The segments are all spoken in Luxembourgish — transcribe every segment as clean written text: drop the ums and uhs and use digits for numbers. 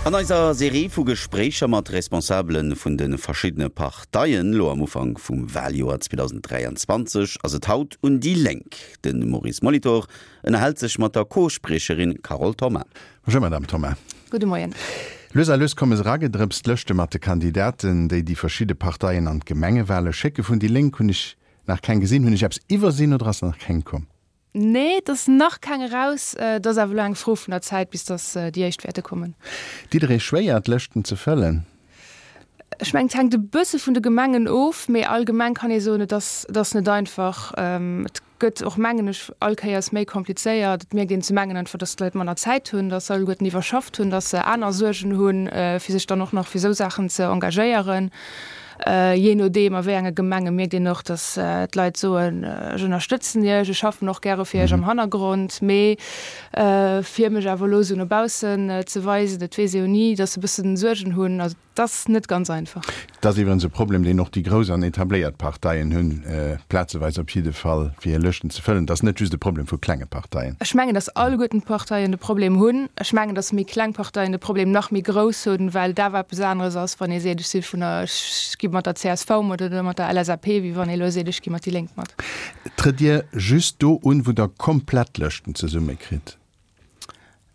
An eiser Serie vu Gespréicher mat Responsabele vun de verschiddene Parteien, lo am Ufank vum Waljoer 2023, ass et haut un déi Lénk. De Maurice Molitor ënnerhält sech mat der Co-Spriecherin Carole Thoma. Bonjour Madame Thoma. Gudde Moien. Lues a lues komme se eragedrëpst, d'Lëschte mat de Kandidaten, déi déi verschidde Parteien an d'Gemengewale schécke. Vun déi Lénk hunn ech nach keng gesinn. Hunn ech eppes iwwersinn oder ass nach keng komm? Nee, et ass nach keng eraus. Et ass awer elo eng Fro vun der Zäit, bis datt déi éischt wäerte kommen. Ditt Der Iech schwéier, d'Lëschten ze fëllen? Ech mengen, et hänkt e bësse vun de Gemengen of, mee allgemeng kann ee soen, et ass, et ass net einfach. Et gëtt och, mengen ech, all Kéiers méi komplizéiert. Et mierkt een zum engen einfach, datt d'Leit manner Zäit hunn, datt se alleguerten iwwerschafft hunn, datt se aner Suergen hunn, fir sech dann och nach fir esou Saachen ze engagéieren. Jee nodeem a wéi enge Gemenge mierkt een och, datt d'Leit soen, ech ënnerstëtzen Iech, ech schaffen och gäre fir Iech am Hannergrond, mee fir mech awer elo esou no baussen ze weisen, dat weess ee jo ni, datt se e bëssen Suergen hunn. Also et ass net ganz einfach. Et ass iwwerens e Problem, deen och déi grouss an etabléiert Parteien hunn, plazeweis op jidde Fall, fir hir Lëschten ze fëllen. Et ass net just e Problem vu klenge Parteien. Ech mengen, datt alleguerten d'Parteien de Problem hunn. Ech mengen, datt méi kleng Parteien de Problem nach méi grouss hunn, well et awer eppes aneres ass, wann ee seet, ech si vun der, ech gi mat der csv mat oder mat der LSAP, wéi wann ee elo seet, ech gi mat déi Lénk mat. Trëtt Dir just do un, wou Der komplett Lëschten zesummekritt?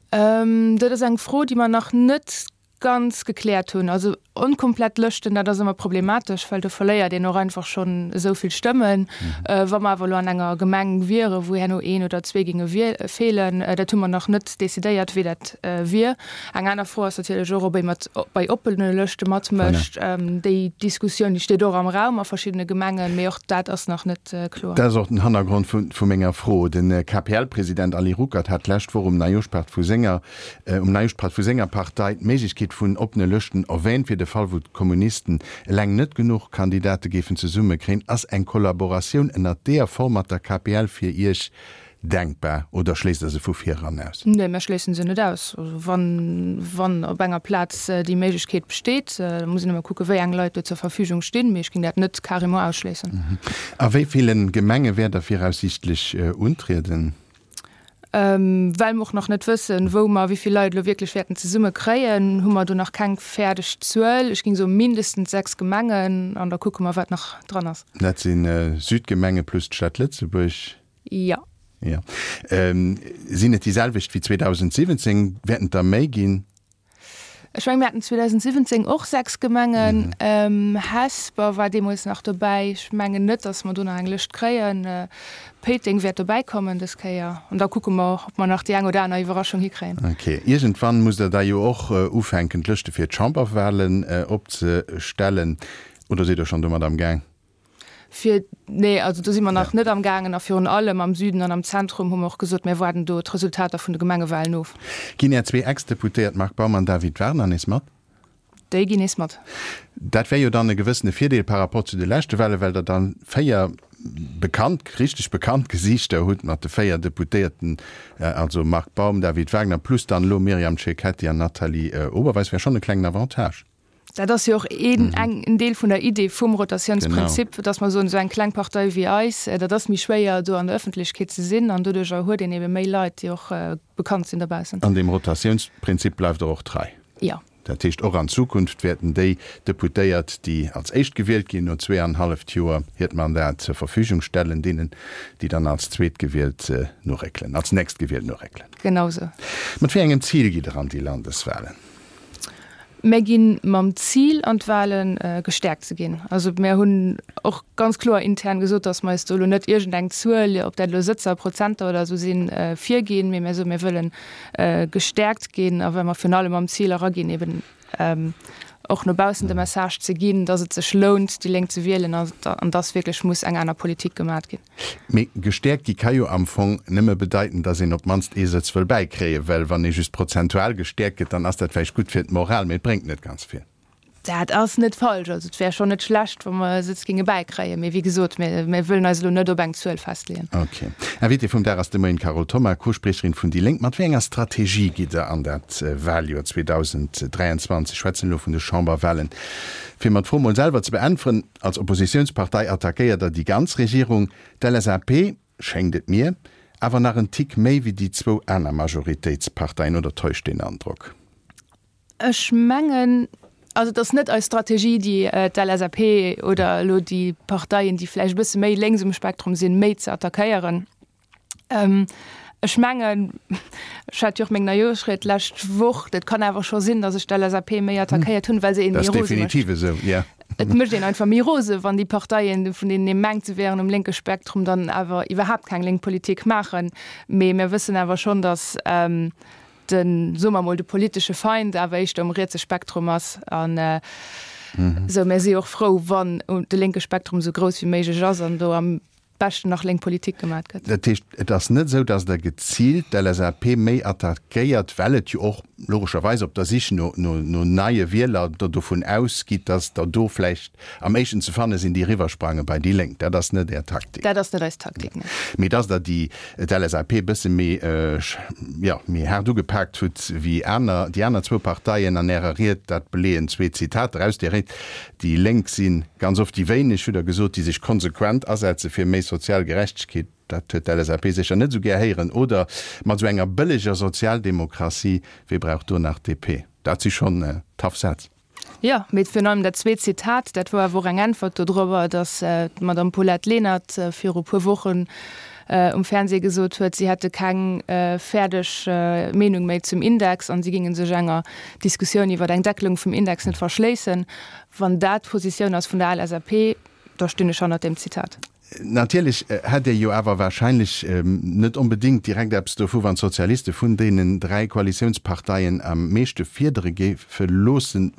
Dat ass eng Fro, déi mer nach net ganz gekläert hunn. Also onkomplett Lëschten, dat ass ëmmer problematesch, well do verléiert een och einfach schonn esou vill Stëmmen. Wa mer awer elo an enger Gemeng wieren, wou herno een oder zwee géinge feelen, dat hu mer nach net decidéiert, wéi dat wier. Eng aner Fro ass natierlech och, ob ee mat bei oppene Lëschte matmécht. Déi Diskussioun, déi steet och am Raum a verschiddene Gemengen, mee och dat ass nach net kloer. Dat ass och den Hannergrond vu menger Fro. De KPL-President Ali Ruckert hat d'lescht Woch um Neijoschpaart vu senger Um Neijoschpaart vu senger Partei d'Méiglechkeet vun oppene Lëschten erwähnt, fir de Fall wou d'Kommunisten eleng net genuch Kandidate géifen zesumme kréien. Ass eng Kollaboratioun ënnert deeër Form mat der KPL fir Iech denkbar oder schléisst der se vu vir eran aus? Nee, mir schléissen se net aus. Also wann, wann op enger Plaz déi Méiglechkeet besteet, da muss een ëmmer kucke wéi eng Leit do zur Verfügung stinn, mee ech géing dat net carrément ausschléissen. A wéi ville Gemenge wäert der viraussiichtlech untrieden? Well mer och nach net wëssen, wou mer wéi vill Leit elo wierklech wäerten zesumme kréien, hu mer do nach keng fäerdeg Zuel. Ech géing soe mindestens 6 Gemengen an da kucke mer, wat nach dran ass. Dat si Südgemenge plus d'Stad Lëtzebuerg? Jo. Jo. Sinn et déi selwecht wéi 2017? Wäerten et der méi ginn? Ech mengen, mir haten 2017 och 6 Gemengen. Hesper war deemools nach dobäi. Ech mengen net, datt mer do nach eng Lëscht kréien. Péiteng wäert dobäi kommen dës Kéier. An da kucke mer, ob mer nach déi eng oder aner Iwwerraschung hikréien. Ok. Iergendwann musst Der da jo och ufänken, d'Lëschte fir d'Chamberwahlen opzestellen. Oder sidd Der schonn domat am Gaang? Fir, nee, also do si mer nach net am gaangen. A virun allem am Süden an am Zentrum hu mer och gesot, mir waarden do d'Resultater vun de Gemengewahlen of. Ginn Är zwee Ex-Deputéiert Marc Baum an David Wagner nees mat? Déi ginn nees mat. Dat wär jo dann e gewëssene Virdeel par rapport zu de leschte Wahlen, well Der dann 4 bekannt, richteg bekannt Gesiichter hutt mat de 4 Deputéierten, also Marc Baum, David Wagner plus dann elo Myriam Cecchetti an Nathalie Oberweis. Wär schonn e klengen Avantage. Dat ass jo och een, eng, en Deel vun der Idee vum Rotatiounsprinzip, dass mer soen, esou eng kleng Partei wéi eis, dat ass méi schwéier do an der Ëffentlechkeet ze sinn an doduerjer huet een ebe méi Leit, déi och bekannt sinn dobaussen. An deem Rotatiounsprinzip bleift Der och trei? Jo. Dat heescht, och an Zukunft wäerten déi Deputéiert, déi als éischt gewielt ginn, no zweeanenhalleft Joer hiert Mandat zur Verfügung stellen, deenen, déi dann als Zweetgewielt noréckelen, als Nächstgewielt noréckelen. Genau esou. Mat wéi engem Zil gitt Der an déi Landeswahlen? Mär gi mam Zil an d'Wahlen, gestäerkt ze ginn. Also mär hunn och ganz kloer intern gesot, datt mer eis do elo net iergendeng Zuel, ob dat elo Sëtzer, Prozenter oder esou sinn, virginn, mee mär soen, mir wëlle gestäerkt ginn a well mer virun allem mam Zil eraginn, eben och no baussen de Message ze ginn, datt et sech lount, déi Lénk ze wielen an datt wierklech muss eng aner Politik gemat ginn. Mee gestäerkt gi ka jo am Fong nëmme bedeiten, datt een op d'mannst ee Sëtz wëll bäikréien, well wann ee just prozentual gestäerkt gëtt, dann ass dat vläicht gutt fir d'Moral, mee et bréngt net ganz vill. Dat ass net falsch. Also et wär schonn net schlecht, wa mer e Sëtz géinge bäikréien. Mee wéi gesot, mir mir wëllen eis elo net op eng Zuel festleeën. Ok. Invitée vum Dag ass de Moien d'Carole Thoma, Co-Spriecherin vun déi Lénk. Mat wéi enger Strategie gitt Der an dat Waljoer 2023? Ech schwätzen elo vun de Chamberwalen. Fir mer d'Fro mol selwer ze beäntweren, Als Oppositiounspartei attackéiert der déi ganz Regierung, d'LSAP, schéngt et mir, awer nach en Tick méi wéi déi zwou aner Majoritéitsparteien, oder täuscht deen Androck? Ech mengen, also et ass net eis Strategie, déi d'LSAP oder elo déi Parteien, déi vläicht e bësse méi lénks um Spektrum sinn, méi ze attackéieren. Ech mengen, ech hat jo och meng Neijooschried d'lescht Woch, dat kann awer scho sinn, datt ech d'LSAP méi attackéiert hunn, well se een méi rose mécht. Dat ass definitiv esou, jo. Et mécht een einfach méi rose, wann déi Parteien, vun deenen ee mengt, se wären um lénke Spektrum, dann awer iwwerhaapt keng lénk Politik maachen. Mee mir wëssen awer schonn, datt den, soe mer emol, de politesche Feind awer éischter um rietse Spektrum ass. An esou, mir si jo och frou, wann de lénke Spektrum esou grouss wéi méiglech ass an do am beschten nach lénk Politik gemat gëtt. Dat heescht, et ass net esou, datt Der geziilt d'LSAP méi attackéiert, well et jo och logescherweis op der Sich no neie Wieler Der dovun ausgitt, datt der do vläicht am éischten ze fanne sinn, déi eriwwersprange bei déi Lénk. Dat ass net Är Taktik. Dat ass net eis Taktik, nee. Mee datt Der déi d'LSAP e bësse méi, jo, méi haart ugepaakt hutt wéi aner, déi aner zwou Parteien an Ärer Ried, dat beleeën zwee Zitater aus där Ried. Déi Lénk si ganz oft déi wéineg, hutt Der gesot, déi sech konsequent asetze fir méi sozial Gerechtegkeet. Dat huet d'LSAP sécher net esou gär héieren. Oder mat esou enger bëlleger Sozialdemokratie, wee brauch do nach DP? Dat si schonn tough Sätz. Jo, mee virun allem dat zweet Zitat, dat wor awer och eng Äntwert dodrobber, datt d'Madame Paulette Lenert viru puer Wochen um Fernseh gesot huet, si hätte keng fäerdeg Meenung méi zum Index an si géinge sech enger Diskussioun iwwer eng Deckelung vum Index net verschléissen. Wann dat d'Positioun ass vun der LSAP, da stinn ech hannert deem Zitat. Natierlech hätt Dir jo awer wahrscheinlech net onbedéngt direkt eppes dovu, wann d'Sozialiste vun deenen 3 Koalitiounsparteien am meeschte fiedere géife loossen,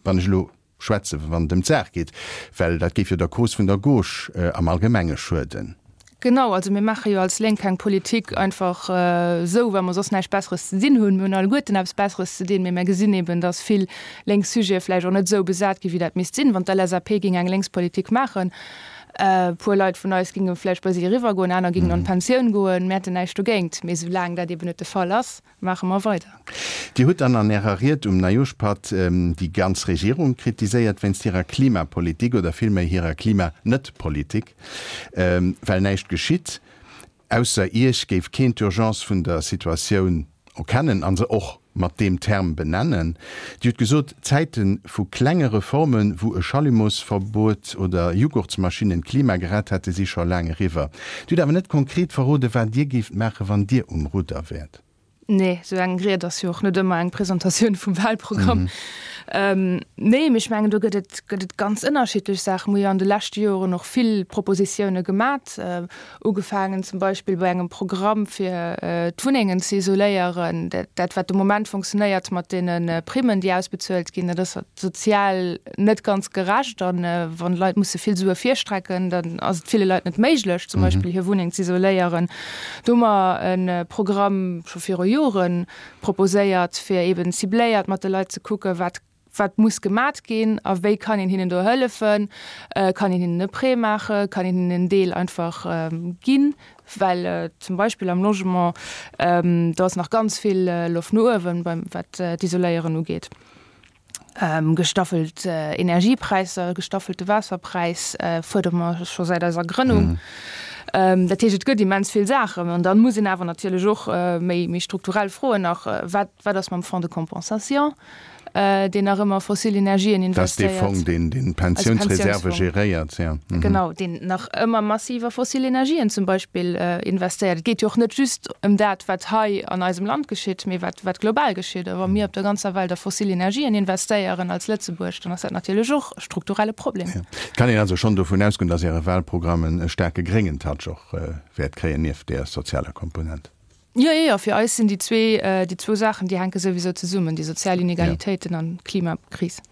wann ech elo schwätze wann et ëm d'Saach geet, well dat géif jo der Cause vun der Gauche am Allgemenge schueden. Genau, also mir maache jo als Lénk keng Politik einfach esou, well mer soss näischt Besseres ze dinn hunn. Mir hunn alleguerten eppes Besseres ze dinn, mee mir gesinn eben, datt vill lénk Sujete vläicht och net esou besat ginn, wéi dat misst sinn. Wann d'LSAP géing eng Lénkspolitik maachen, e puer Leit vun eis géinge vläicht bei si eriwwergoen, aner géingen an d'Pensioun goen, mir hätten näischt dogéint. Mee soulaang dat eben net de Fall ass, maache mer weider. Dir hutt dann an Ärer Ried um Neijoschpatt déi ganz Regierung kritiséiert wéinst hirer Klimapolitik oder villméi hirer Klima-Net-Politik, well näischt geschitt. Ausser Iech géif keen d'Urgence vun der Situatioun erkennen a se och mat deem Term benennen. Dir hutt gesot, Zäite vu klenge Reformen, wou e Schallumosverbuet oder Jughurtsmaschinnen d'Klima gerett hätte, si scho laang eriwwer. Dir hutt awer net konkret verroden, wat Dir géift maachen, wann Dir um Rudder wäert. Nee, esou eng Ried ass jo och net ëmmer eng Presentatioun vum Wahlprogramm. Nee, mee ech mengen, do gëtt et, gëtt et ganz ënnerschiddlech Saachen. Mir hu jo an de leschte Joren och vill Propositioune gemat, ugefaangen zum Beispill bei engem Programm fir d'Wunnengen ze isoléieren. Dat, wat de Moment funktionéiert mat deene Primmen, déi ausbezuelt ginn, dat ass sozial net ganz gerecht. A wann d'Leit musse vill Sue virstrecken, dann ass et ville Leit net méiglech, zum Beispill hir Wunneng ze isoléieren. Do hu mer e Programm scho viru Jore proposéiert, fir eeben cibléiert mat de Leit ze kucken, wat wat muss gemat ginn a wéi kann een hinnen do hëllefen. Kann een hinnen e Prêt maachen, kann een hinnen en Deel einfach ginn, well zum Beispill am Logement, do ass nach ganz vill Loft no uewen, beim wat d'Isoléieren ugeet. Gestaffelt Energiepräisser, gestaffelte Waasserpräis fuerdere mer scho säit eiser Grënnung. Dat heescht, et gëtt immens vill Saachen. An da muss een awer natierlech och méi strukturell froen nach, Wat, wat ass mam Fonds de compensation? deen nach ëmmer fossil Energien investéiert. Dat ass dee Fong, deen deen d'Pensiounsreserve geréiert, jo. Genau, deen nach ëmmer massiv a fossil Energien zum Beispill investéiert. Et geet jo och net just ëm dat, wat hei an eisem Land geschitt, mee wat, wat global geschitt. A wa mir op der ganzer Welt a fossil Energien investéieren als Lëtzebuerg, dann ass dat natierlech och e strukturelle Problem. Jo. Et kann een also schonn dovun ausgoen, dass Äre Wahlprogramm e staarke gréngen Touch och wäert kréien, nieft där sozialer Komponent. Jo, jo, jo, fir eis sinn déi zwee, déi zwou Saachen, déi hänke souwisou zesummen, déi sozial Inegalitéiten an d'Klimakris.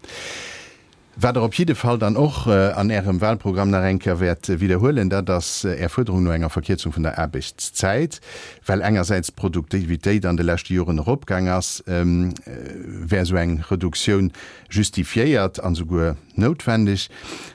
Wat Der op jidde Fall dann och an Ärem Wahlprogramm nach eng Kéier wäert widderhuelen, dat ass Är Fuerderung no enger Verkierzung vun der Aarbechtszäit. Well engersäits d'Produktivitéit an de leschte Joren eropgaang ass, wär esou eng Reduktioun justifiéiert an esouguer noutwendeg,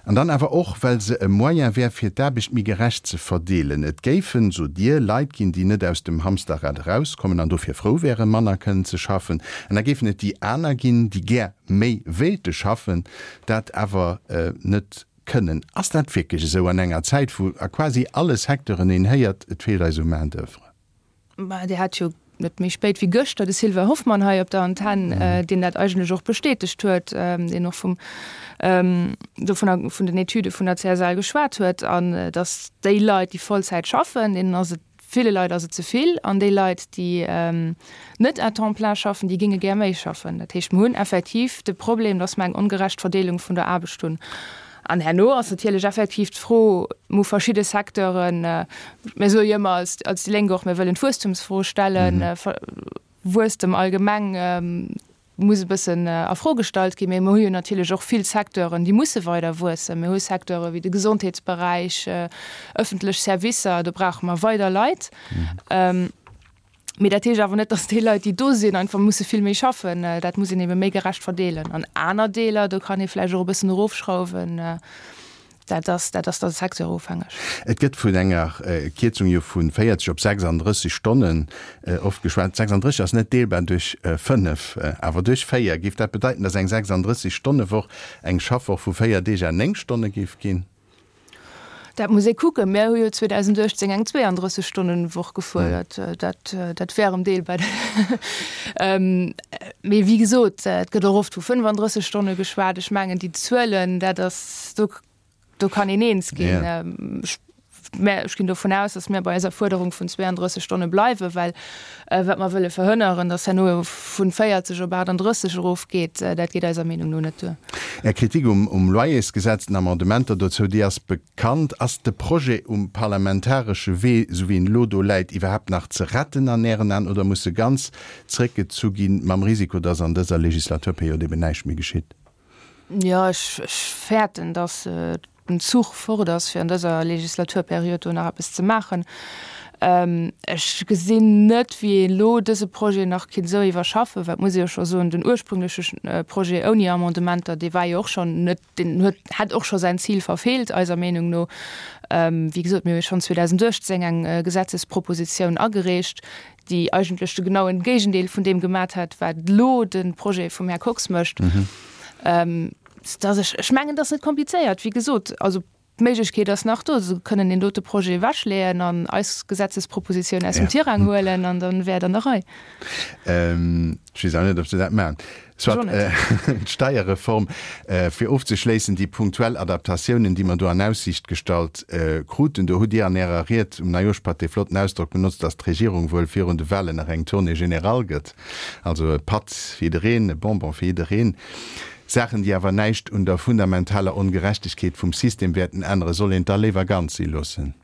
an dann awer och, well se e Moyen wär, fir d'Aarbecht méi gerecht ze verdeelen. Et géifen, sot Dir, Leit ginn, déi net aus dem Hamsterrad erauskommen an dofir frou wären, manner kënnen ze schaffen. An da géifen et déi aner ginn, déi gär méi wéilte schaffen, dat awer net kënnen. Ass dat wierklech esou an enger Zäit, wou a quasi alle Secteuren een héiert, et feelt eis u Main d'oeuvre? Mä Dir hat jo. net méi spéit wéi gëschter de Sylvain Hoffmann hei op der Antenn, deen dat eigentlech och bestätegt huet, deen och vum, dovunner, vun den Etüde vun der CSL geschwat huet, an datt déi Leit, déi Vollzäit schaffen, deenen ass et, ville Leit ass et ze vill, an déi Leit, déi net à temps plein schaffen, déi géinge gär méi schaffen. Dat heescht, mer hunn effektiv de Problem, datt mer eng ongerecht Verdeelung vun der Aarbecht hunn. An herno ass natierlech effektiv d'Fro, mer hu verschidde Secteuren, mir soe jo ëmmer als, als déi Lénk och, mir wëllen d'Wuesstumsfro stellen, Wuesstem allgemeng muss e bëssen a Fro gestallt ginn, mee mer hu jo natierlech och vill Secteuren, déi musse weider wuessen. Mir hu Secteure wéi de Gesondheetsberäich, ëffentlech Servicer, do brauche mer weider Leit. Mee dat heescht awer net, datt déi Leit, déi do sinn, einfach musse vill méi schaffen. Dat muss een ebe méi gerecht verdeelen. An aner Deeler, do kann ee vläicht och e bëssen erofschrauwen. Dat ass, dat ass da secteurofhängeg. Et gëtt vun enger Kierzung jo vu 40 op 36 Stonnen oft geschwat. 36 ass net deelbar duerch 5, awer duerch 4. Géif dat bedeiten, datt eng 36 Stonne Woch eng Schaffwoch vu 4 Deeg à 9 Stonne géif ginn? Dat muss ee kucken. Mir hu jo 2018 eng 32 Stonnen Woch gefuerdert. Dat, dat wär erëm deelbar. Mee wéi gesot, et gëtt och oft vu 35 Stonne geschwat. Ech mengen déi Zuelen, dat ass, do, do kann een eens ginn. Ech, mä ech ginn dovun aus, datt mir bei eiser Fuerderung vun 32 Stonne bleiwen, well wat mer wëlle verhënneren, datt herno vun 40 op 38 erofgeet, dat geet eiser Meenung no net duer. Är Kritik um Loyersgesetz, den Amendementer dozou, déi ass bekannt. Ass de Projet um parlamentaresche Wee, esou wéi en elo do läit, iwwerhaapt nach ze retten an Ären Aen oder muss e ganz zréckgezu ginn, mam Risiko, datt an dëser Legislaturperiod eben näischt méi geschitt? Jo, ech fäerten, datt den Zuch fort ass, fir an dëser Legislaturperiod do nach eppes ze maachen. Ech gesinn net, wéi een elo dëse Projet nach kinnt esou iwwerschaffen, well et muss ee jo scho soen, den ursprüngleche Projet ouni Amendementer, dee war jo och schonn net, deen huet, hätt och scho säin Zil verfeelt, eiser Meenung no. Wéi gesot, mir hu jo schonn 2018 eng Gesetzespropositioun agereecht, déi eigentlech de genauen Géigendeel vun deem gemat hätt, wat elo de Projet vum Här Kox mécht. Dass ech, ech mengen, dat ass net komplizéiert, wéi gesot. Also d'Méiglechkeet ass nach do, se kënnen deen dote Projet ewechleeën an eis Gesetzespropositioun aus dem Tirang huelen an dann wär et an der Rei. Ech weess awer net, ob se dat maachen. Soit, d'Steierreform, fir ofzeschléissen, déi punktuell Adaptatiounen, déi mer do an Aussiicht gestallt kruten, do hutt Dir an Ärer Ried um Neijooschpatt dee flotten Ausdrock benotzt, dass d'Regierung wuel virun de Wahlen nach eng Tournée générale gëtt, also e Patt fir jiddereen, e Bonbon fir jiddereen. Saachen, déi awer näischt un der fundamentaler Ongerechtegkeet vum System wäerten änneren, soll een et da léiwer ganz si loossen?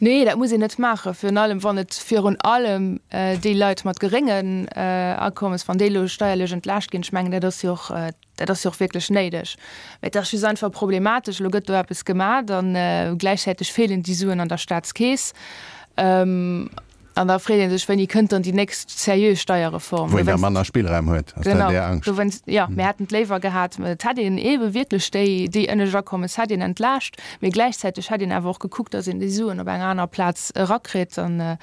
Nee, dat muss een net maachen, virun allem wann et virun allem déi Leit mat geréngen Akommes, wann déi elo steierlech entlaascht ginn. Ech mengen, dat ass jo och, dat ass jo och wierklech néideg. Mä et ass just einfach problematesch, elo gëtt do eppes gemat a gläichzäiteg feelen déi Suen an der Staatskeess. An da freet ee sech, Wéini kënnt dann déi nächst seriö Steierreform? Wou een da manner Spillraum huet, ass dat Är Angscht? Dowéinst, jo, mir hätten et léiwer gehat, et hätt een eebe wierklech déi, déi ënnescht Akommes hätt een entlaascht, mee gläichzäiteg hätt een awer och gekuckt, datt een déi Suen op enger anerer Plaz erakritt. An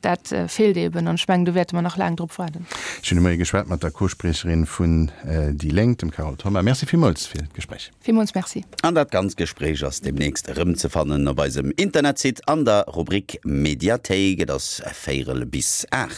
dat feelt eeben. An ech mengen, do wäerte mer nach laang drop waarden. Ech hunn de Moie geschwat mat der Co-Spriecherin vun déi Lénk, dem Carole Thoma. Merci villmools fir d'Gespréich. Villmools Merci. An dat ganzt Gespréich ass demnächst erëmzefannen op eisem Internetsite an der Rubrik Mediathéik. Et ass véierel bis 8.